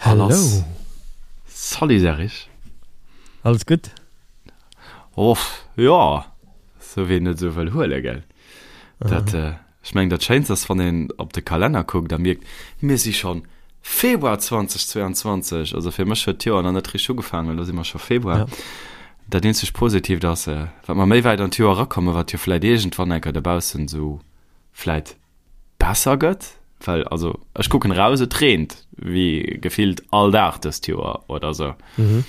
Hello. Salut Serge. Alles gutt? Och, jo, sou wéi een et esou wëll huelen, gell. Dat, ech mengen, dat Schéinst ass, wann een op de Kalenner kuckt a mierkt, mir si schonn Februar 2022. Also fir mech huet d'Joer nach net richteg ugefaangen, elo si mer scho Februar. Ja. Dat eenzegt Positiivt ass, wat mer méi wäit an d'Joer erakommen, wat jo vläit iergendwann eng Kéier dobaussen esou vläit besser gëtt, well also ech kucken eraus, et reent wéi gefillt all Dag dëst Joer oder sou. Mhm.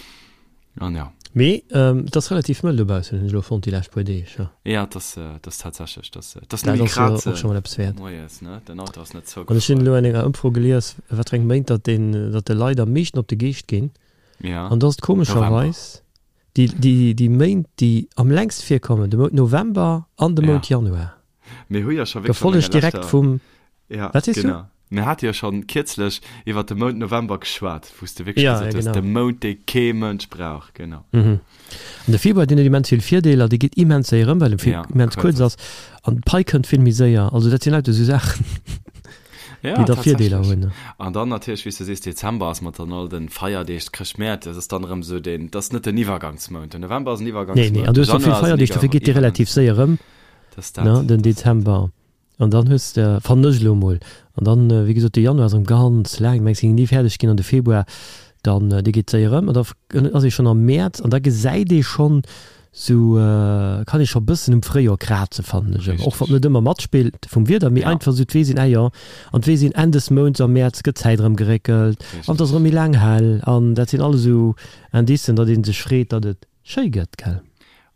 An ja. Mee et ass relativ mëll dobaussen, hunn ech elo fonnt déi lescht puer Deeg, jo. Ja, et ass, et ass tatsächlech, et ass, et ass Dat nëmme ass jo kraze och scho mol eppes wäert. moies, ne, den Auto ass net An ech hunn zougefruer. elo an enger Ëmfro gelies, wat fir eng Méint datt den, datt de Leit am meeschten op de Geescht ginn. Ja, An do ass et November. komescherweis déi, déi, déi Méint, déi am längst virkommen, de Mount November an de Ja. Mount Januar. Mir hu jo scho wierklech an Gefollegt enger direkt leschter vum, Ja, wat sees du? genau. Mir hate jo schonn kierzlech iwwer de Mount November geschwat, wou s de wierklech Ja, gesot ja, hues, genau. de Mount, dee kee Mënsch brauch. Genau. Mhm. An de Februar, deen huet immens vill Virdeeler, dee geet immens séier ëm, well e vill Ja, immens kuerz kuerz ass. ass. An d'Pai kënnt vill méi séier. Also dat sinn lauter esou Saachen, Ja, déi da Virdeeler tatsächlech. hunn. An dann natierlech, wéi s de sees, Dezember ass mat dann all de Feierdeeg, Chrëschtmäert, dat ass dann erëm esou deen, dat ass net den Iwwergangsmount. Den November ass en Nee, nee, Iwwergangsmount, an du de hues och vill Januar ass en Feierdeeg, dofir Iwwer geet dee relativ Iwwergangsmount. séier ëm, Dat ass dat, ne, den dat ass dat. Dezember. An dann hues de, fannen ech elo emol, an dann, wéi gesot, de Januar ass erëm ganz laang, mengs géing ni fäerdeg ginn, an de Februar dann, dee geet séier erëm, an da ass ee schonn am Mäerz, an da gesäit ee schonn sou, kann ee scho bëssen um Fréijoer krazen, fannen ech ëmmer, och wann Richteg. et net ëmmer matspillt vum Wieder, mee Ja. einfach sou d'Weess een, ah jo, an d'Weess een, Enn des Mounts am Mäerz gëtt d'Zäit erëm geréckelt, an et ass Richteg. erëm méi laang hell, an dat sinn alles esou Indicen, datt ee sech freet, datt et schéi gëtt, gell.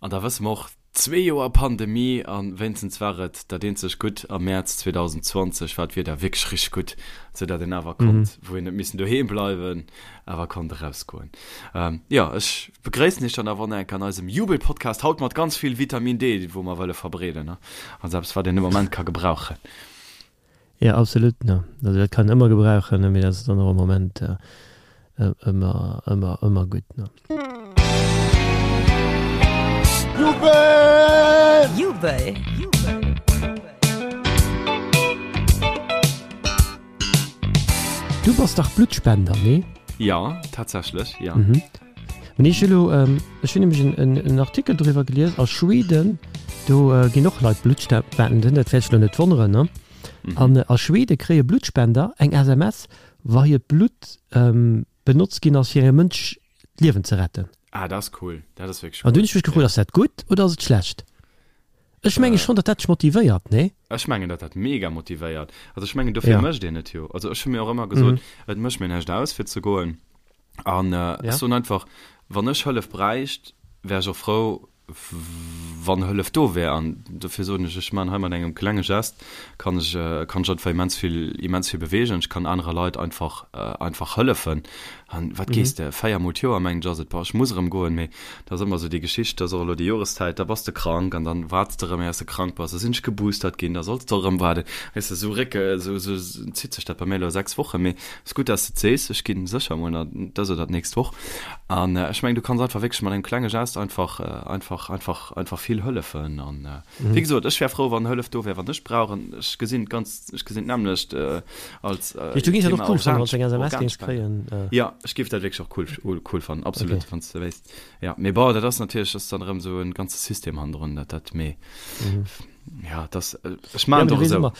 An da wësse mer och, Zwee Joer Pandemie an wéinstens war et dat eenzeg gutt, am Mäerz 2020 war d'Wieder wierklech richteg gutt, sou dat een awer konnt, wou een net missen doheem bleiwen, awer konnt erausgoen. Jo, ech begréissen iech dann awer och nach eng Kéier an eisem Jubelpodcast, haut mat ganz vill Vitamin D, wou mer wëlle verbreeden, also eppes wat een de Moment ka gebrauchen. Jo, absolut, ne. Also dat kann een ëmmer gebrauchen, ne, mee dat ass dann och am Moment ëmmer, ëmmer, ëmmer gutt, ne. Jubel! Jubel! Du bass dach Bluttspender, nee? Jo, tatsächlech, jo. Mee ech hu lo, ech hunn nämlech en Artikel doriwwer gelies, a Schweden, do ginn och Leit Blutt spenden, dat wäert dech lo net wonneren, ne? An a Schwede kréie Bluttspender eng SMS, wa hiert Blutt benotzt ginn ass, fir engem Mënsch d'Liewen ze retten. Ah, dat ass cool, dat ass wierklech cool. An du hunn ech mech gefrot, ass dat gutt oder ass et schlecht? Ech menge schonn, datt dat dech motivéiert, nee? Ech mengen, datt dat mega motivéiert. Also ech mengen, dofir mécht een et jo. Also ech hu mir och ëmmer gesot, et mécht mir näischt aus, fir ze goen. An ech soen einfach, wann ech Hëllef bräicht, wär ech och frou, wann Hëllef do wär. An dofir soen ech, ech man hei mat engem klenge Gest, kann ech, kann ech einfach immens vill, immens vill beweegen. Ech kann anere Leit einfach, einfach hëllefen. An wat gees de, 4 mol d'Joer mengen ech ass et, boah, ech muss erëm goen, mee dat ass ëmmer esou déi Geschicht, dat ass och elo déi Joreszäit, da bass de krank an dann waarts de erëm éiers de krank bass, da sinn ech geboostert ginn, da solls de erëm waarden, weess de, esou récke, esou, esou zitt sech dat bei mir elo 6 Wochen, mee ass gutt, dass de et sees, ech ginn sécher emol nach dës oder d'nächst Woch an ech mengen, du kanns einfach wierklech mat engem klenge Gest einfach, einfach, einfach, einfach vill hëllefen an wéi gesot, ech wär frou, wann Hëllef do wär, wann ech brauch an ech gesinn et ganz, ech gesinn d'nämmlecht als Du géings dat och Thema cool fannen, Organ, wann s du eng SMS géings Organspende. kréien? Jo, ech géif dat wierklech och cool, cool fannen, absolut, Okay. wann s de wéisst. Jo, mee bon, dat ass natierlech, dat ass dann erëm esou en ganze System hannendrun, dat, dat, mee ja, dat, ech Ja, maachen mee et du och weess esou. ëmmer,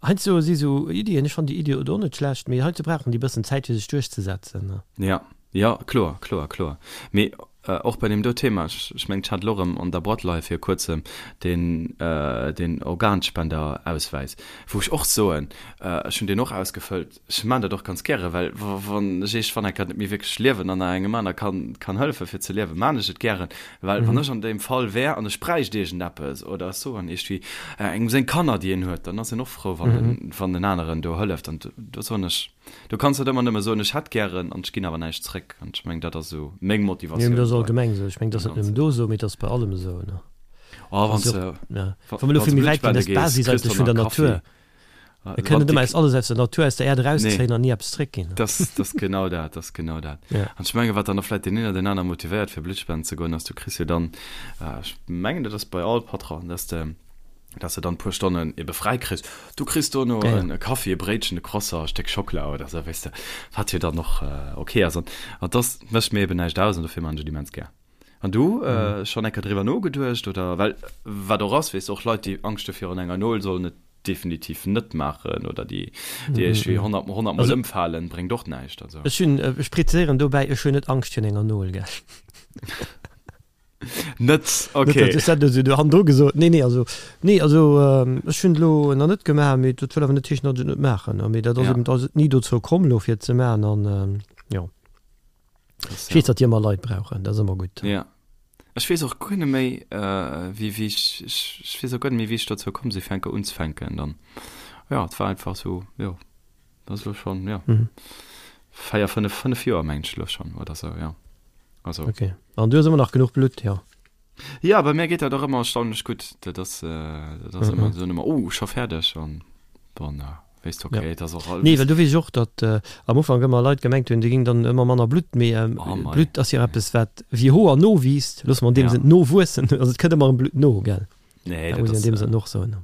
Heiansdo si sou Iddien, ech fannen déi Iddi och net schlecht, mee heiansdo brauchen déi bëssen Zäit fir sech duerchzesetzen. Ja, ja, kloer, kloer, kloer. Mee och bei deem do Thema, ech, ech mengen, ech hat elo erëm an der Boîte leie vir kuerzem deen, deen Organspendeauswäis, wou ech och soen, ech hunn deen och ausgefëllt, Ech maan dat och ganz gären, well wann ech iergendwann eng Kéier net méi wierklech liewen an nach engem aner kann kann hëllefen fir ze liewen, maan ech et gären, well wann ech an deem Fall wär an ech bräicht iergendeppes oder ech soen iergendwéi engem seng Kanner déi een huet, dann ass een och frou wann den wann den aneren do hëlleft an do soen ech, do kanns net ëmmer nëmme soen ech hätt gären an ech ginn awer näischt zréck an ech mengen dat ass esou meng Nee, mee Motivatioun dat ass bei allgemeng esou. Ech mengen dat ass deem net nëmmen Ganzen. do esou, mee dat ass bei allem esou, ne? Oh, wann Ass s jo de och, ja, wa wa mer elo wann s vill de méi wäit Blutt ginn, dat spende ass gees, d'Basis kriss eigentlech de vun der nach Kaffi. Natur. Mir kënnen net ëmmer eis alles aus der Natur, aus der Äerd erauszéien an ni eppes zréckginn. Dat ass genau dat, dat ass genau dat. An ech menge wat dann och vläicht deen een oder deen aner motivéiert fir Blutt spenden ze goen, ass du kriss jo dann, ech mengen dat ass bei all Patron, dass de. Dass de dann e puer Stonnen ebe fräi kriss. Du kriss dono ja, ja. e Kaffi, e Bréitchen, e Croissant, e Stéck Schockela oder sou, weess de, wat jo dann och äh, okay ass. An, an das mécht mir eben näischt aus an dofir man ech et immens gär. An du, mhm. äh, schonn eng Kéier driwwer nogeduecht oder well wat och ass, weess de, och Leit, déi Angscht hu virun enger Nol, sollen et definitiv net maachen oder déi, déi mhm. iergendwéi 100, 100 Mol ëmfalen, bréngt och näischt. Also. Ech hunn, ech präziséieren dobäi, ech hunn net Angscht virun enger Nol, gell. Net, okay. Net, dat huet du hannendru gesot. Nee, nee, also, nee, also ech hunn et elo nach net gemaach, mee dat wëll awer net heeschen, datt ech et net maachen. Mee dat ass eben, ass et ni dozou komm elo fir et ze maachen an jo. Ech weess, datt déi ëmmer Leit brauchen, dat ass ëmmer gutt. Ja. Ech weess och guer net méi, wéi, wéi ech, ech weess och guer net méi, wéi ech dozou komm sinn, fir enker unzefänken dann. Jo, et war einfach esou, jo. Dat ass elo schonn, jo, 4, 5, 5 Joer mengen ech elo schonn oder sou, jo. Also. Ok. An du hues ëmmer nach genuch Blutt, jo? Ja, bei mir geet dat och ëmmer erstaunlech gutt. Dat ass, dat ass ëmmer, soen ëmmer, oh, scho fäerdeg an dann weess de, ok, et ass och alles. Nee, well do weess ech och, datt am Ufank ëmmer Leit gemengt hunn, do géing dann ëmmer manner Blutt, mee Blutt ass jo eppes, wat wéi Hoer nowiisst, loosse mer an deem Sënn nowuessen, also et kënnt ëmmer erëm Blutt no, gell? Nee, dat muss een an deem Sënn och soen.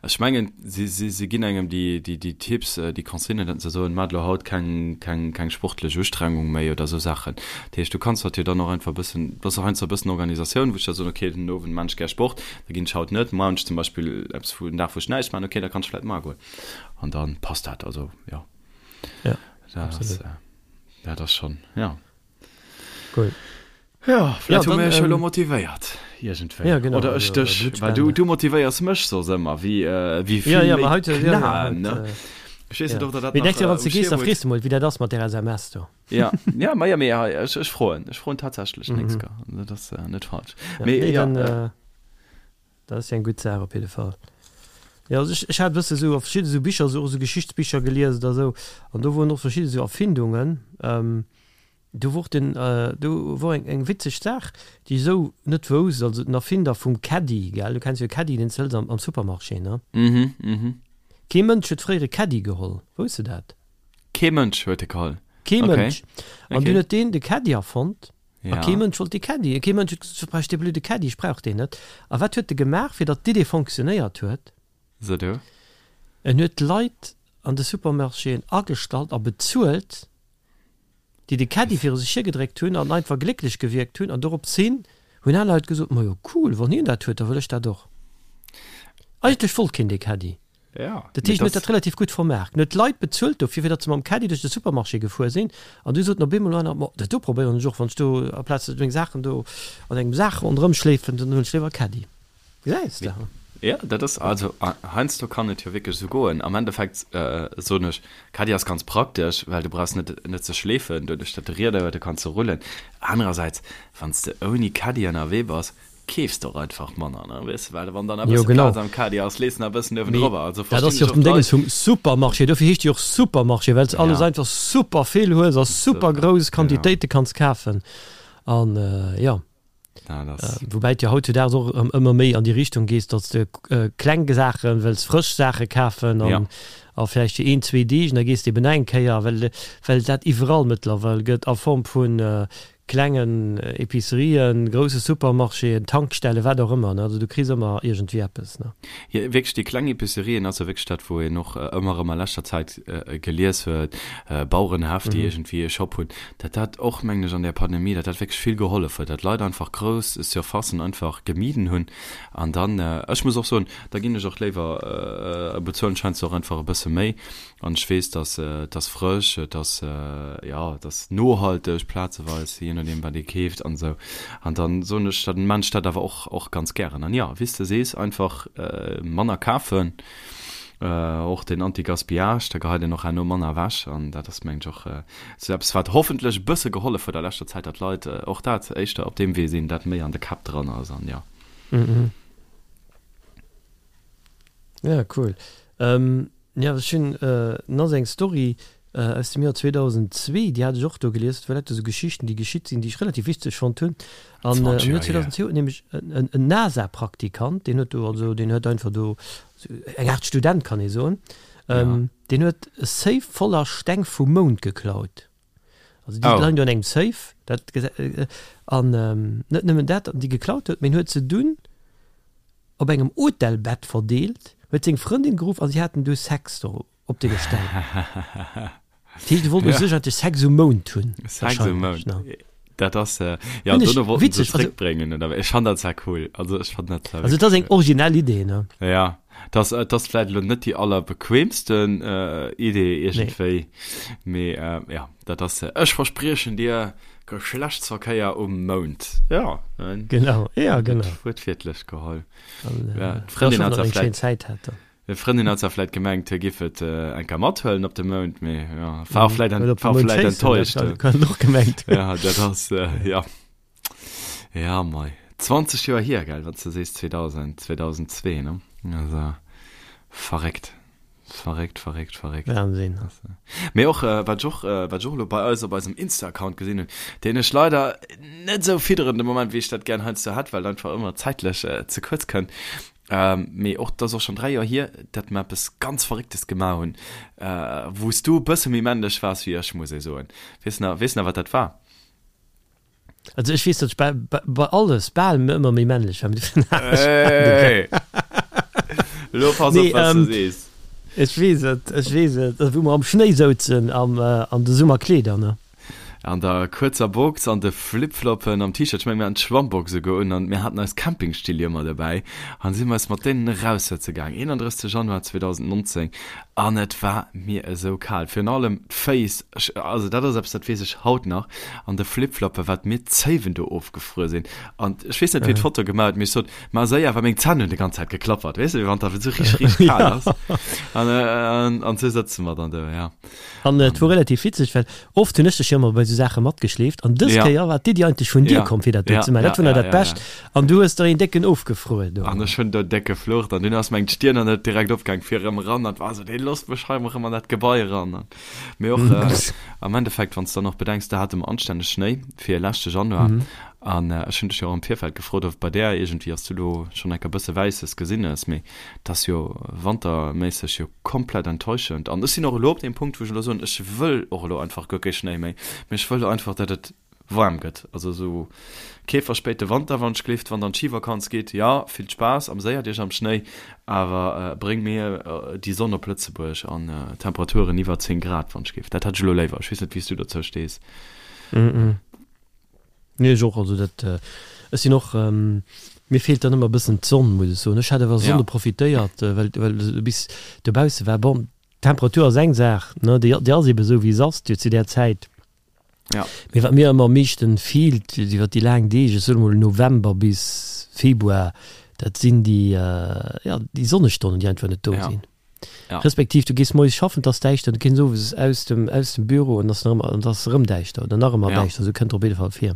Ech mengen, si, si, si ginn engem déi, déi, déi Tipps, déi Consignen, datt se soen, Maacht elo haut keng, keng, keng sportlech Ustrengung méi oder esou Saachen. Dat heescht, du kanns dat jo dann och einfach e bëssen, dat ass och heiansdo e bëssen Organisatioun, wou ech da soen, okay, den Owend maan ech gär Sport, da ginn ech haut net, muer hunn ech zum Beispill eppes wou, en Dag wou ech näischt maachen, okay, da kann ech vläicht mar goen. An da passt dat, also jo. Ja, absolut. Dat ass, dat ass schonn, ja. Cool. Ja, vläicht ja, hu mir iech elo motivéiert iergendwéi. Ja, genau. Oder ech dech, well du, du motivéiers mech soss ëmmer, wéi, äh, wéi vill ja, ja, méi heute, ja, ja, heute, ne? Äh, Ech weess net, ob der dat nach, äh, wann du gees, da frees du mol, wéi dat ass mat der SMS do. Ja, ja, ma ja, mee hei, ech, ech froen, ech froen tatsächlech mhm. nächst Kéier. Dat ass äh, net falsch. Ja, mee, nee, ja, dann, äh, äh, Dat ass jo eng gutt Saach op jidde Fall. Jo, also ech, ech hat e bësse sou a verschidde sou Bicher, sou och sou Geschichtsbicher gelies oder sou, an do woren och verschidde sou Erfindungen. Ähm, do wor den, do wor eng, eng witzeg Saach, déi ech sou net wousst, also den Erfinder vum Caddie, gell, du kenns jo e Caddie, deen s de hëls am, am Supermarché, ne? Mhm, mhm. Kee Mënsch huet fréier e Caddie geholl, wousst de dat? Kee Mënsch huet e geholl? Kee Mënsch. An dunn huet deen de Caddie erfonnt. A kee Mënsch wollt dee Caddy. Kee Mënsch huet gesot, Wat brauch ech dee blöde Caddy, ech brauch deen net. A wat huet e gemaach, fir datt d'Idee fonctionnéiert huet? So du. En huet d'Leit an de Supermarchéen agestallt a bezuelt, déi de Caddy viru sech hiergedréckt hunn an einfach glécklech gewierkt hunn. An doropshin hunn aner Leit gesot, Majo cool, wann hien dat huet, da wëll ech dat och. Eigentlech wollt keen dee Caddy. Ja, Dat heescht, en huet dat relativ gutt vermaart. En huet d'Leit bezuelt dofir, fir datt se mam Caddy duerch de Supermarché gefuer sinn. An du soten op eemol aner, Ma dat do probéieren ech och, wann ech do aplaz meng Saachen do an engem Sak ronderëm schleefen, dann huelen ech léiwer e Caddy. Gesäis de? Ja, dat ass, also heiansdo kann et jo wierklech esou goen. Am Endeffekt soen ech, Caddy ass ganz praktesch, well du brauchs net, net ze schleefen, doduerch datt de Rieder huet, du kanns se rullen. Anerersäits, wann s de ouni Caddy ënnerwee bass, keefs de och einfach manner, ne, weess de, well wann dann e bësse Plaz am Caddie ass, lees de nach e bëssen uewendrop. Also dat ass jo och den Dénges vum Supermarché, dofir heescht jo och Supermarché, well s de alles einfach super vill hues a super grouss Quantitéite kanns kafen an jo. Woubäi et jo hautzudaags och erëm ëmmer méi an déi Richtung gees, datt s de kleng Saachen, wëlls frësch Saache kafen an a vläicht fir een, zwee Deeg an da gees de eben nach eng Kéier, well well dat iwwerall mëttlerweil gëtt a Form vu Klengen Epicerien, grousse Supermarchéen, Tankstellen, wat och ëmmer, ne? Also du kriss ëmmer iergendwéi eppes, ne? Jo, wierklech déi kleng Epicerien ass jo wierklech dat, wou een och ëmmer erëm a leschter Zäit gelies huet, Bauerenhäff, déi iergendwéi e Shop hunn, datt dat och, mengen ech, an där Pandemie, datt dat wierklech vill gehollef huet, datt Leit einfach grouss Surfacen einfach gemiden hunn. An dann, ech muss och soen, da ginn ech och léiwer, bezuelen ech heiansdo och einfach e bësse méi, An ech weess, dass et ass frësch, et ass, jo, et ass nohalteg plazeweis, jee nodeem wat ee keeft an esou. An dann soen ech, dann maan ech dat awer och, och ganz gären. An jo, wéi s de sees, einfach manner kafen, och den Anti-Gaspillage, da geheit een och herno manner ewech. An dat ass, mengen ech, och esou eppes, wat hoffentlech e bësse gehollef huet a leschter Zäit, datt d'Leit och dat éischter op deem Wee sinn, dat méi an de Käpp dran ass an jo. Ja, cool. Jo, ech hunn nach esou eng Story aus dem Joer 2002, déi hat ech och do gelies. Dat war lauter esou Geschichten, déi geschitt sinn, déi ech relativ witzeg fonnt hunn. An am Joer 2002 huet nämlech en NASA-Praktikant, deen huet do, also deen huet einfach do, eng Aart Student kann ee soen, deen huet e Safe voller Steng vum Mound geklaut. Also déi leien do an engem Safe, dat an net nëmmen dat, déi geklaut huet, mee en huet se dunn. op engem Hotelbett verdeelt, huet seng Frëndin geruff a si haten du Sex do op deene Ställ. Dat heescht, e wollt u sech eigentlech Sex um Mound hunn. Sex um Mound. Dat ass, äh, ja, Hunn ech dono wollten se witzeg, also- zréckbréngen, oder? Ech fann dat zwar cool. Also ech fann dat zwar Also et ass eng originell Idee, ne? Ja, dat ass, dat ass vläit elo net déi allerbequemsten äh, Idee iergendwéi, mee äh, ja, dat ass, ech verspriechen dir Geschlechtsverkéier um Mound. Ja, ne? Genau, ja, genau. Wuertwiertlech geholl. An, Ja, äh, d'Frëndin ja, hat ech zwar hoffen, datt eng vläit schéin Zäit hat dann. D'Frëndin hat zwar vläit gemengt, hie giff et eng Kéier mathuelen op de Mound, mee jo, war och vläit Oder op de war Mound vläit schéissen, dat enttäuscht. kann och gemengt hunn. Ja, dat ass, jo. Ja, mei. 20 Joer hier, gell, wann s de sees 2000, 2002, ne? Also, verréckt. Verréckt, verréckt, verréckt. Wahnsinn. Mee och, wat ech och, wat ech och elo bei eis op eisem Insta-Account gesinn hunn, deen ech leider net esou fidderen de Moment, wéi ech dat gären heiansdo hätt, well et einfach ëmmer zäitlech ze kuerz kënnt, Mee och, dat ass och schonn 3 Joer hier, datt mer eppes ganz Verrécktes gemaach hunn, wou s du e bësse méi männlech waars wéi ech, muss ee soen. Weess nach, weess nach, wat dat war? Also ech weess, datt ech bei, bei, bei alles bal ëmmer méi männlech war, mee dofir Hey! Elo pass op, Nee, wat s du ähm, sees. ech weess et, ech weess et, wou mer am Schnéi souzen am, an de Summerkleeder, ne? An der kuerzer Box, an de Flipfloppen, am T-Shirt, ech mengen mir haten d'Schwammbox esouguer un an mir haten eis Campingstill jo ëmmer dobäi an si mer eis mat deenen eraussëtze gaang, 31 Januar 2019 an et war mir esou kal, virun allem d'Féiss, ech, also dat ass eppes dat weess ech haut nach, an de Flipfloppen, wat mir d'Zéiwen do ofgefruer sinn an ech weess net wien d'Foto gemaach huet, mee ech sot, ma séier, well meng Zänn hunn déi ganz Zäit geklappert, weess de, wéi wann et esou richteg, richteg kal ass an an esou sëtze mer dann do, ja. An et wor relativ witzeg, well oft hunn ech dech jo ëmmer bei esou Saache matgeschleeft an dës Ja. Kéier war d'Iddi eigentlech vun dir Ja. komm, fir dat do Ja, ze maachen. ja, Dat wor nach ja, dat ja, Bescht. ja. An du hues der een décken ofgefruer do. An ech hunn do déck geflucht an dunn ass meng d'Stirn an net direkt opgaang fir erëm eran an war esou, dee losst mech hei erëm an dat Gebai eran. An mee och am Endeffekt, wann s de dann och bedenks, da hate mer anstänneg Schnéi fir leschte Januar an ech hunn dech jo och am Virfeld gefrot, ob bei där iergendwéi, ass du lo schonn enker bësse Wäisses gesinn hues, mee 't ass jo wanterméisseg jo komplett enttäuschend. An ech sinn och elo op deem Punkt, wou ech elo soen, ech wëll och elo einfach guer kee Schnéi méi, mee ech wëll elo einfach, datt et waarm gëtt. Also esou kee verspéite Wanter, wann ech gleeft, wann dann d'Schivakanz geet, jo, vill Spaass, ameséiert iech am Schnéi, awer bréng mir déi Sonn op Lëtzebuerg an Temperaturen iwwer 10 Grad, wann ech géif. Dat hätt ech elo léiwer. Ech weess net, wéi s du dozou stees. Nee, ech och. Also dat, ech sinn och, mir feelt dann ëmmer e bëssen d'Sonn, muss ech soen. Ech hat awer Sonne Ja. profitéiert, well, well du bis dobausse war. Bon, d'Temperatur ass eng Saach, ne, déi, déi ass ebe sou, wéi se ass jo zu där Zäit. Ja. Mee wat mir ëmmer am meeschten feelt iwwer déi laang Deeg, ech soen emol November bis Februar, dat sinn déi, jo, déi Sonnestonnen, déi einfach net do Ja. sinn. Ja. Respektiv du gees moies schaffen, 't ass däischter, du kënns owes aus dem, aus dem Büro an ass nach ëmmer, an 't ass erëm däischter oder nach ëmmer Ja. däischter, esou kënnt op jidde Fall vir.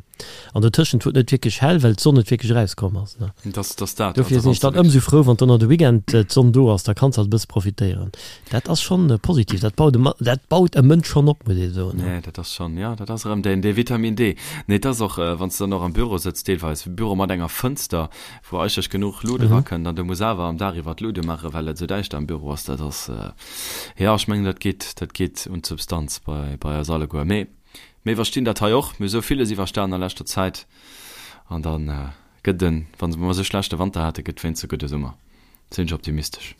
An dotëschent wor et net wierklech hell, well d'Sonn net wierklech erauskomm ass, ne. Dat ass, dat ass dat. Dofir Also sinn ech wann dann s de ëmsou frou, wann dann de Weekend d'Sonn do ass, da kanns halt e bësse profitéieren. Dat ass schonn positiv, dat baut e Ma, dat baut e Mënsch schonn op, muss ee soen, ne. Nee, dat ass schonn, jo, dat ass erëm deen, dee Vitamin D. Nee, et ass och, wann s de dann och am Büro sëtz deelweis, Büro mat enger Fënster, wou eigentlech genuch Lut erakënnt an du muss awer am Dag iwwer d'Lut umaachen, well et esou däischter am Büro ass, dat ass, jo, ech mengen, dat geet, dat geet un d'Substanz bei, bei eis alleguer. Mee mir iwwerstinn dat hei och. Mir hu sou villes iwwerstan a leschter Zäit an da gëtt en, wa mer esou schlechte Wanter hate, gëtt wéinst e gudde Summer. Sinn ech optimistesch.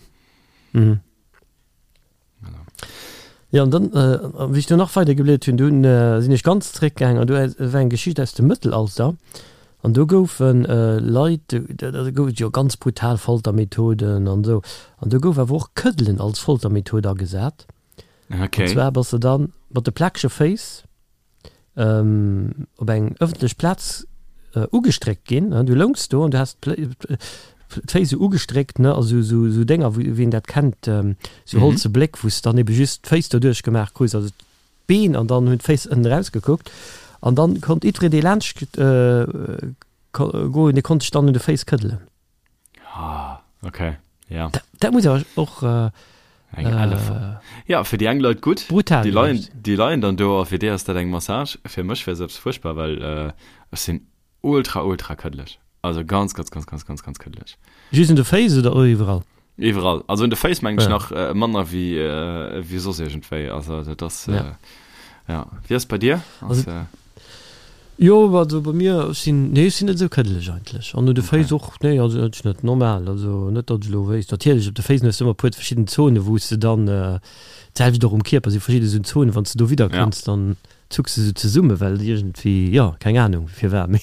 Jo, an dann, wéi ech do nach weider gebliedert hunn, dunn sinn ech ganz zeréckgaangen an do war eng Geschicht aus dem Mëttelalter an do goufe Leit, do gouf et jo ganz brutal Foltermethoden an esou, an do gouf awer och Këddelen als Foltermethod agesat. An zwar bass de dann mat de plakege Féiss op eng ëffentlech Plaz ugestréckt ginn, du loungs do an du has d'Féiss esou ugestréckt, ne, also esou esou Dénger, wou wien dat kennt, esou holze Bléck, wou s de dann ebe just d'Féiss doduerch gemaach krus, also d'Been, an dann hunn d'Féiss ënnen erausgekuckt an dann konnt jiddwereen, dee laanscht goen, dee konnt sech dann un de Féiss këddelen. Ah, okay, ja. Dat, dat muss awer och äh, Eng elle äh, Ja, fir déi eng Leit gutt. Brutal Déi leien, déi leien dann do a fir déi ass dat eng Massage. Fir mech wär se eppes fuerchtbar, well äh, ech sinn ultra, ultra këddeleg. Also ganz, ganz, ganz, ganz, ganz, ganz këddeleg. Just un de Féiss oder och iwwerall? Iwwerall. Also un de Féiss mengen ech Ja. nach äh, manner wéi, äh, wéi soss iergendwéi. Also dat ass, Ja. äh, ja. Wéi ass bei dir? Also, Ass, äh. Jo, also bei mir, ech sinn, nee, ech sinn net esou këddeleg eigentlech. An un de Féiss och, nee, also ech net, normal, also net datt ech elo wéisst. Natierlech, op de Féiss hues de ëmmer e puer verschidden Zonen, wou s de dann, d'selwecht och um Kierper si verschidde esou Zonen, wann s de do widder kënns, dann zucks de sou zesumme well et iergendwéi, jo, keng Anung firwat, mee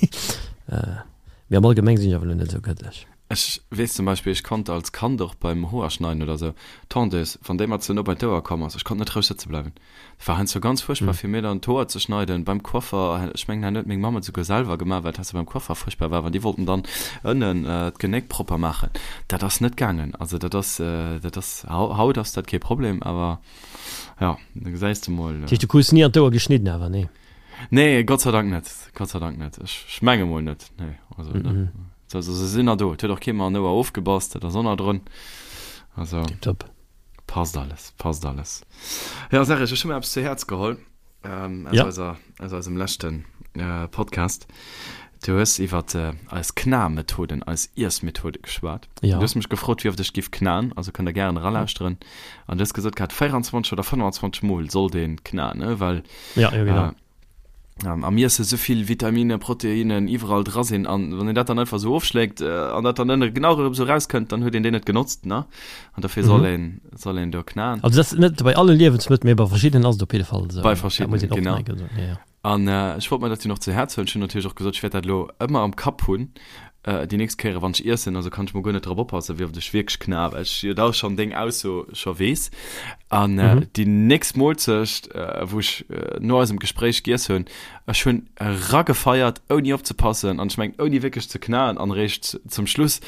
mee am Allgemeng sinn ech awer elo net esou këddeleg. Ech weess zum Beispill, ech konnt als Kand och beim Hoerschneiden oder sou, d'Tondeuse, wann déi mer ze no bei d'Ouer komm ass, ech konnt net roueg sëtze bleiwen. Dat war heiansdo ganz fuerchtbar fir mir dann d'Hoer ze schneiden. Beim Coiffer, ech mengen, dat huet meng Mamm et souguer selwer gemaach, well et heiansdo beim Coiffer fuerchtbar war, wann déi wollten dann ënnen d'Genéck propper maachen. Dat ass net gaangen. Also dat ass, dat ass, haut ass dat kee Problem, awer jo, da gesäis de mol. Dat heescht, du krus ni an d'Ouer geschnidden awer, nee? Nee, Gott sei Dank net, Gott sei Dank net. Ech menge mol net, nee, also ne. Also se sinn nach do. Et huet och kee mer en Ouer ofgebass, dat ass och nach drun. Also Tiptop. passt alles, passt alles. Ja, Serge, ech hu mir eppes zu Häerz geholl ähm, aus, Ja. eiser, aus eisem leschten äh, Podcast. Du hues iwwer äh, eis Kna-Methoden, eis Iessmethode geschwat. Ja. Du hues mech gefrot, wéi oft ech giff knaen, also kënnt der gären eralauschteren. An du hues gesot gehat, 24 oder 25 Mol sollt een knaen, ne? Well Ja, ja, genau. äh, am Iesse souvill Vitaminen, Proteinen iwwerall dra sinn an wann een dat dann einfach sou ofschléckt an dat dann ënne genau erëm sou rauskënnt, dann huet een déi net genotzt, ne? An dofir soll een, soll een do knaen. Also dat ass net bei alle Liewensmëttel, mee bei verschiddenen ass et op jidde Fall esou. Bei verschiddenen, genau. An ech wollt mer dat jo nach zu Häerz huelen. Ech hunn natierlech och gesot, ech wäert dat elo ëmmer am Kapp hunn, déi nächst Kéiere wann ech iessen, also kann ech mol guer net drop oppassen, wéi oft ech wierklech kna, well ech jo da schonn deng Ausso scho weess. An déi nächst Moolzecht, wou ech no eisem Gespréich giess hunn, ech hunn eragefeiert, ouni opzepassen an ech mengen ouni wierklech ze knaen an eréischt zum Schluss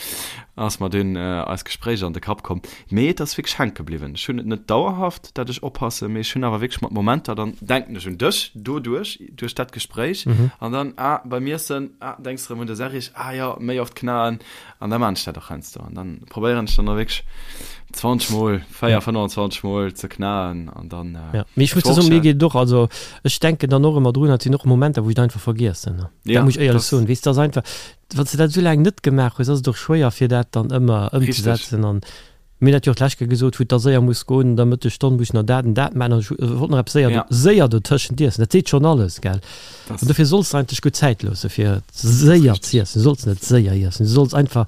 ass mer dunn eist Gespréich an de Kapp komm. Mee et ass wierklech hänke bliwwen. Ech hunn et net dauerhaft, dat ech oppassen, mee ech hunn awer wierklech mat Momenter, dann denken ech un dech doduerch, duerch dat Gespréich an dann, ah, beim Iessen, ah, denks de erëm un de Serrig, ah jo, méi oft knaen an da maan ech dat och heiansdo an dann probéieren ech dann och wierklech 20 mol, 4, 25 mol ze knaen an dann. Ja, mee ech muss der soen, mir geet et och, also ech denken dann och ëmmer drun, et sinn och Momenter, wou ech et einfach vergiessen, dat Ja, muss ech éierlech dat. soen, weess de, ass einfach, wann s de dat esou laang net gemaach hues, ass et och schwéier fir dat dann ëmmer ëmzesetzen an Mir hunn dat jo och d'lescht Kéier gesot, wou et da séier muss goen, an der Mëttesstonn muss ech nach dat an dat maachen an ech wollt nach eppes séier, Ja. séier dotëschent iessen. Dat seet schonn alles, gell? Das, An dofir solls de eigentlech gutt Zäit loosse fir das ass séier richtig. z'iessen. Du solls net séier iessen, du solls einfach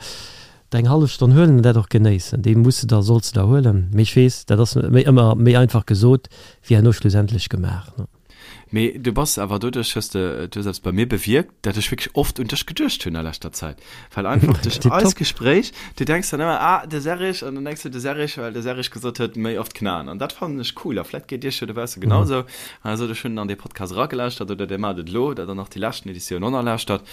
der eng hallef Stonn huelen an dat och genéissen. Déi muss de der, solls de der huelen. Mee ech weess, dat ass méi ëmmer méi einfach gesot wéi herno schlussendlech gemaach, ne? Mee du bass awer doduerch, hues de, du hues eppes bei mir bewierkt, dat ech wierklech oft un dech geduecht hunn a leschter Zäit. Well einfach duerch Tipptopp. eist Gespréich, du denks dann ëmmer, ah, de Serrig, an dann denks du de Serrig, well de Serrig gesot huet, méi oft knaen. An dat fannen ech cool. A vläit geet iech jo dobausse genausou. An da sot ech, hunn an dee Podcast eragelauschtert, oder dir maacht et elo, dat der nach déi leschten Editioun onerlauschtert,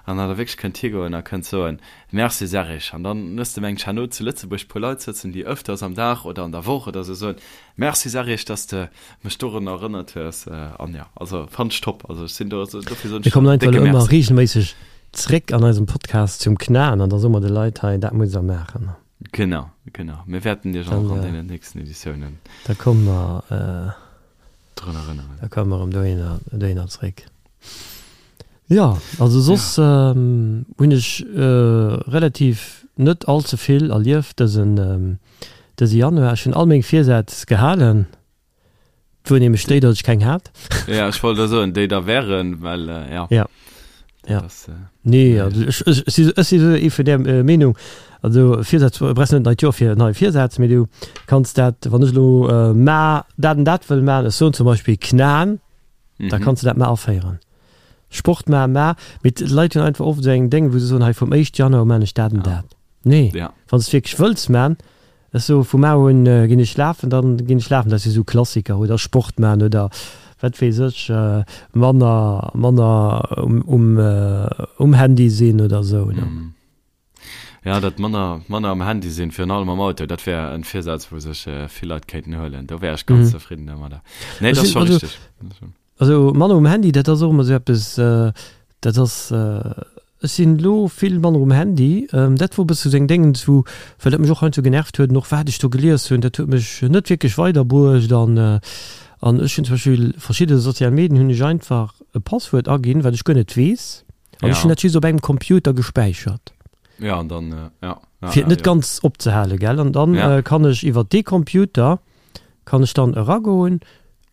an datt der wierklech kënnt higoen a kënnt soen, Merci Serrig. An dann hues de mengt herno zu Lëtzebuerg puer Leit sëtzen, déi ëfters am Dag oder an der Woch oder sou soen, Merci Serrig, dass de mech dorun erënnert hues an jo also fannt ech top also ech sinn do also dofir soen Mir ech kommen der einfach décke elo ëmmer Merci. regelméisseg zréck an eisem Podcast zum Knaen an da soe mer de Leit hei, dat musst der maachen. Genau, genau. Mir wäerten iech Dann, och an deenen nächsten Editiounen da komme mer, drun erënneren. da komme mer erëm dohinner, dohinner zréck. Jo, also soss hunn ech relativ net all ze vill erlieft dësen, dëse Januar. Ech hunn all meng Virsätz gehalen. Et wor nämlech déi, datt ech keng hat. Ja, ech wollt der soen, déi da wären, well ja. Ja. Ja. Das, äh, Nee, also ech, ech, ech si, ech si sou ee vun där äh, Meenung, also Virsätz, brauchs net neit Joer fir nei Virsätz, mee du kanns dat, wann ech elo äh, ma dat an dat wëll man, ech soen zum Beispill knaen, mm -hmm. da kanns du dat ma aféieren. Sport ma, ma, mee d'Leit hunn einfach oft esou eng Déng, wou se soen, hei vum éischt Januar u man ech dat an ja. dat. Nee, ja. wann s de wierklech wëlls man, Ech soe vu mar un ginn ech lafen, dann ginn ech lafen. Dat si sou Klassiker. Oder Sport man oder wat weess ech, manner manner um um Handy sinn oder sou. Jo, dat manner manner am Handy sinn, virun allem am Auto, dat wär en Virsaz wou sech vill Leit kéinten huelen. Do wär ech ganz zefridden domadder. Nee, dat ass scho richteg. Also manner um Handy, dat ass och ëmmer esou eppes, dat ass, ech sinn elo vill manner um Handy, dat wor e bësse sou eng Déngens wou, well dat mech och heiansdo genervt huet an och wat ech do gelies hunn, dat huet mech net wierklech weiderbruecht an an ech hunn zum Beispill verschidde sozial Medien hunn ech einfach e Passwuert aginn, wat ech guer net weess an ech hunn dat just op engem Computer gespäichert. Ja an dann, ja, ja, Fir et net ganz opzehalen, gell, an dann kann ech iwwer dee Computer kann ech dann eragoen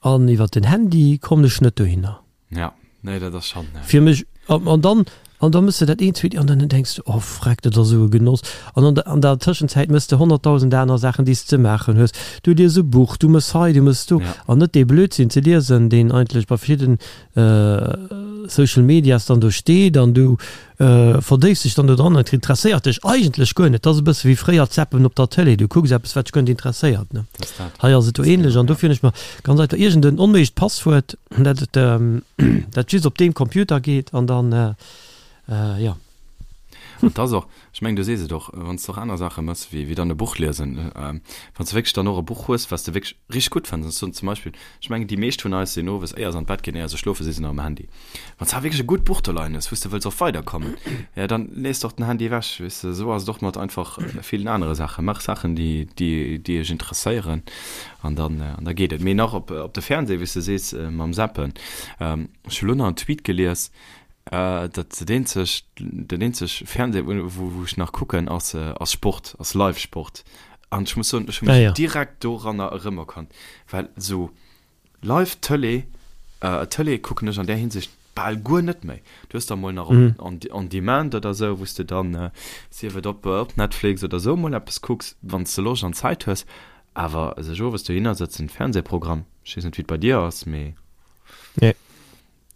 An iwwer den Handy kommen ech net dohinner. Ja, nee, dat ass schon. Fir mech. An dann, an da mëss de dat eent, zweet, an dann denks de, oh freck, dat ass esou e Genoss. An an der, an der Tëschenzäit mëss de 100.000 aner Saachen, déi s de ze maachen hues. Du lies e Buch, du mëss hei, du mëss do. An net dee Blödsinn ze liesen, deen eigentlech bei verschidden Social Medias dann do steet an du verdéifs dech dann do dran an et interesséiert dech eigentlech guer net. Dat ass e bësse wéi fréier d'Zappen op der Tëlee, du kucks eppes, wat dech guer net interesséiert, ne? Hei ass et do ähnlech an dofir hunn ech mer ganz einfach iergend en onméiglecht Passwuert, dat et dat just op deem Computer geet an dann, jo. An et ass och, ech mengen, du sees et och, wann s de och aner Saache méchs wéi wéi dann e Buch liesen, wann s de wierklech dann och e Buch hues, wat s de wierklech richteg gutt fënns, an ech soen zum Beispill, ech mengen, déi meescht vun eis sinn owes, éier se an d'Bett ginn, éier se schlofe si se nach um Handy. Wann s de awer wierklech e gutt Buch do leien hues, wou s de wëlls och weiderkommen, jo, dann lees de och den Handy ewech, weess de. Esou ass et och mat einfach villen anere Saachen. Maach Saachen, déi déi déi dech interesséieren an dann an da geet et. Mee nach op op de Fernseh, wéi s de sees, mam Zappen, ech hu lo nach en Tweet gelies, Dat dat eenzeg, den eenzeg Fernseh, wou, wou ech nach kucken, ass, ass Sport, ass Live-Sport. An ech muss soen, ech hu mech ah, ja. direkt doranner erëmerkannt, well esou Live-Tëlee, äh, Tëlee kucken ech an där Hinsicht bal guer net méi. Du hues da mol nach mm. on, on demand oder esou, wou s de dann, äh, sief et op, op Netflix oder esou mol eppes kucks, wann s de Loscht an Zäit hues. Awer sech owes dohinner sëtzen, Fernsehprogramm, ech weess net, wéi et bei dir ass, mee. Nee.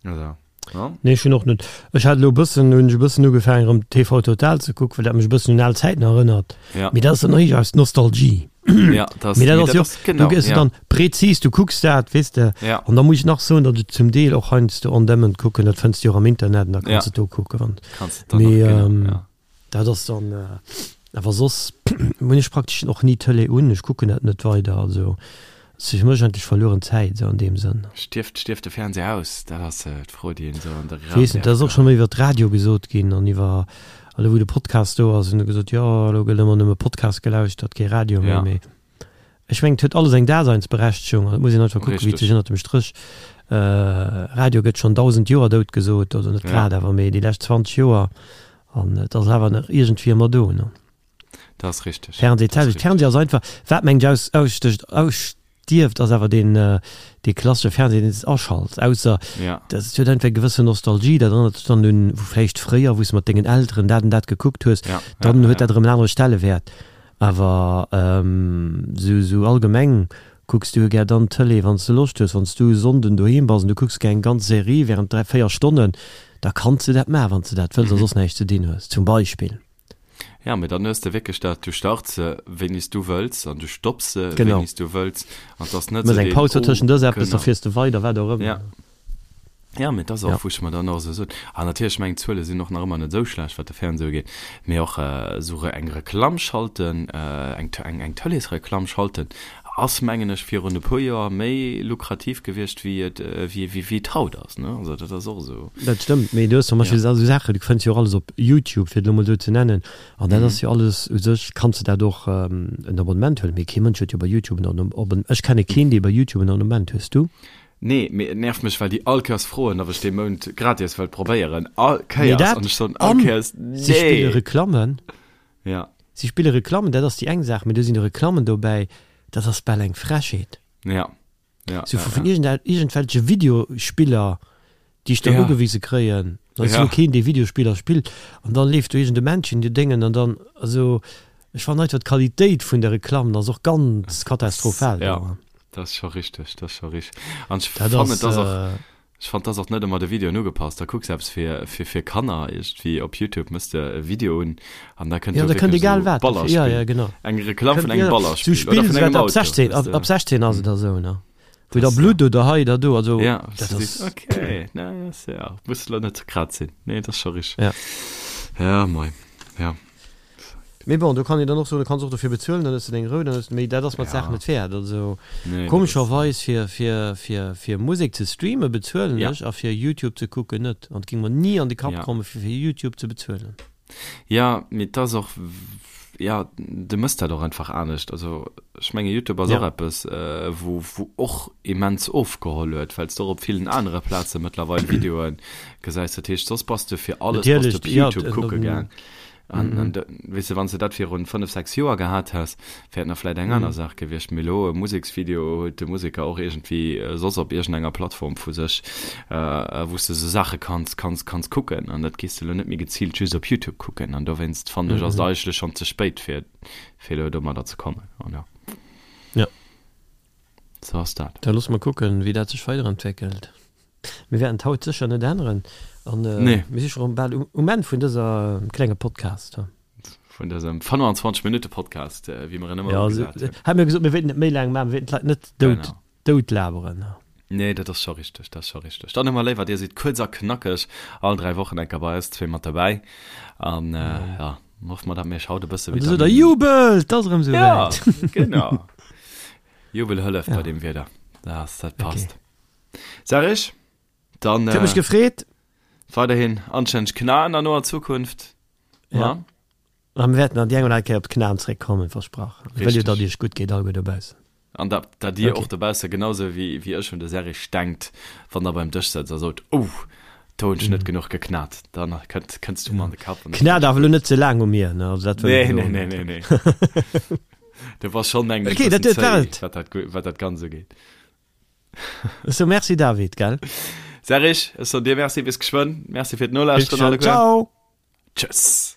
Also, ja. Nee, ech hunn och net. Ech hat elo e bëssen, hunn ech e bëssen ugefaangen erëm TV Total ze kucken, well dat mech e bëssen un al Zäiten erënnert. Ja. Mee dat ass dann eréischt aus Nostalgie. Ja, das, Mee dat ass jo, genau, du gëss ja. dann prezis, du kucks dat, weess de. Ja. An da muss ech nach soen, datt ech zum Deel och heiansdo on demand kucken, dat fënns du jo och am Internet an da kanns ja. du do kucken, wann. Kanns du dann Mee, och, genau, ähm, ja. Dat ass dann, awer soss hunn ech praktesch och ni d'Tëlee un, ech kucken dat net weider, also et ass fir mech eigentlech verlueren Zäit esou an deem Sënn. Stierft, stierft de Fernseher aus? Dat ass d'Fro, déi een esou an de Raum Weess net, dat ass och scho méi iwwer de Radio gesot ginn an iwwer, elo wou de Podcast do ass, hunn se gesot, jo elo gëtt ëmmer nëmme Podcast gelauschtert, kee Radio méi, mee ech mengen et huet alles eng Daseinsberechtegung an et muss een einfach kucken, wéi et sech ënnert dem Stréch, Radio gëtt schonn 1.000 Joer dout gesot, also net grad, awer mee déi lescht 20 Joer An et ass awer nach iergendwéi ëmmer do, ne? Dat ass richteg. Fernseh, d'selwecht. Fernseh ass einfach, wat mengt aus, ausstécht, ausstierft, ass awer deen, dee klassesche Fernseh, deen s aschalts. Ausser, ja. dat huet einfach eng gewëssen Nostalgie, dat erënnert dech dann un, wou vläicht fréier, wou s mat dengen Elteren dat an dat gekuckt hues, ja, dann ja, huet ja. dat erëm en anere Stellewäert. Awer sou, sou allgemeng Kucks du gär dann d'Tëlee wann s de Loscht hues? Wann s du e Sonnden doheem bass an du kucks gär eng ganz Serie während 3, 4 Stonnen, da kanns du dat maachen, wann s de dat wëlls a soss näischt ze dinn hues, zum Beispill. Ja, mee dann hues de wierklech dat, du starts se wéini s du wëlls an du stopps se Genau. wéini s du wëlls an 't ass net Mëss sou eng deen, Paus oh, dotëschent, ëss eppes, da genau. fiers de weider, wat och ëmmer. Ja. Ja, mee et ass och, Ja. wou ech mer dann och esou sot, an natierlech, ech mengen, d'Zuele sinn och nach ëmmer net esou schlecht, wat de Fernseh ugeet, mee och esou eng Reklamm schalten, eng eng Tëleesreklamm schalten, ass, mengen ech, virun e puer Joer méi lukrativ gewiescht, wéi et, wéi wéi et haut ass, ne? Also dat ass och esou. Dat stëmmt, mee du hues zum Ja. Beispill esou Saachen, du fënns jo och alles op YouTube, fir et elo mol esou ze nennen, an dat ass jo alles, u sech kanns de dat och en Abonnement huelen, mee kee Mënsch huet jo bei YouTube en Abonnement, ech kenne keen, dee bei YouTube en Abonnement hues du? Nee, mee et nervt mech, well déi all Kéiers froen, ob ech dee Mount gratis wëllt probéieren. All Mee Kéiers. dat, An ech soen all an Kéiers, si spille nee! Reklammen. Ja. Si spille Reklammen, dat ass déi eng Saach, mee do sinn Reklammen dobäi, dat ass bal eng Frechheet. Ja. Ja, Sou ja, vu vun ja. iergend, iergendwelche Videospiller, déi ech dann Ja. ugewise kréien. Dann ass Ja. jo keen, dee Videospiller spillt. An dann leeft do iergend e Männchen, dee Déngen, an dann, also, ech fannen einfach d'Qualitéit vun de Reklammen ass och ganz katastrophal Ja. do. Dat ass scho richteg, dat ass scho richteg. An ech Dat fannen, ass, et ass och, ech fannen, et ass och net ëmmer de Videoen ugepasst. Da kucks eppes fir, fir, fir Kanner iergendwéi op Youtube, mëss de e Video un an da kënnt Ja, do da kënnt wierklech egal esou wat. Ja, Ballerspill. ja, genau. Eng Reklamm vun Kënnt, engem ja, Ballerspill sou oder Spill, vun engem wat ab Auto, 16, weess ab, de. ab 16 ass et da sou, ne? Wou da Das, Blutt ja. oder hei oder do, also Ja, dat du sees, ass, okay, na, ass ja, muss lo net grad sinn. Nee, dat ass scho richteg. ja. Ja, moi, ja. Mee bon, do kann een dann och soen, du kanns och dofir bezuelen, dann hues de deng Rou, dann hues de, mee dat ass mer d'Saach Ja. net wäert. Also Nee, dat ass. komescherweis fir, fir, fir, fir Musek ze streamen bezuelen Ja. ech a fir YouTube ze kucken net. An et géing mer ni an de Kapp Ja. kommen, fir fir YouTube ze bezuelen. Ja, mee et ass och, ja, du mëss dat och einfach anescht. Also ech menge YouTube ass Ja. och eppes, wou, wou och immens ofgeholl huet, well s de och op villen anere Plaze mëttlerweil Videoe gesäis. Dat heescht, soss bass de fir alles bass de Natierlech, op ja, YouTube kucke gaang. An, an de, weess de, wann s de dat virun 5, 6 Joer gehat häss, wär et nach vläit eng aner Saach gewiescht. Mee elo e Museksvideo huet de Museker och iergendwéi soss op iergendenger Plattform vu sech, wou s de esou Saache kanns, kanns, kanns kucken. An dat gees de elo net méi geziilt just op Youtube kucken. An dowéinst fannen ech, ass et eigentlech schonn ze spéit, fir, fir elo domadder ze kommen. An jo. Ja. Sou ass dat. Da loosse mer kucken, wéi dat sech weiderentwéckelt. Mir wäerten d'haut sécher net änneren an mir si scho rëm bal um Enn vun dëser klenge Podcast. Vun dësem 25 Minutte Podcast, wéi mer en ëmmer ugesat hunn. Hat mir gesot, mir wéilten net méi laang maachen, mir wéilten d'Leit net dout, dout laberen. Nee, dat ass scho richteg, dat ass scho richteg. Dann ëmmer léiwer, Dir sidd kuerz a knackeg all 3 Wochen enker bei eis zwee mat derbäi. An ja, hoffe mer, datt mir iech haut e bësse Vitamin. An da sot der, Jubel, 't ass erëm esouwäit. Ja, genau. Jubel hëlleft bei deem Wieder. Dat, dat passt. Serge, dann. Huet mech gefreet. Weiderhin anstänneg Knaen an noer Zukunft. Ja. A mir wäerten an déi eng oder aner Kéier op d'Knaen zréckkommen, versprach. Ech wëll jo, datt iech gutt geet, alleguer dobaussen. An datt, datt dir och dobausse genausou wéi, wéi ech un de Serge denkt, wann der beim Dësch sëtzt a sot, Oh, do hunn ech net genuch geknat. Dann kënnt, kënns du mer an de Kapp. Knat awer elo net ze laang u mir, ne? Also dat wëll ech elo net. Nee, nee, nee, nee. Du bass schonn, mengen ech, e bëssen zéi, wat dat, wat dat Ganzt ugeet. So merci David, gell? Serge, ech soen dir Merci, bis geschwënn. Merci fir d'Nolauschteren alleguer. Ciao! Tschëss!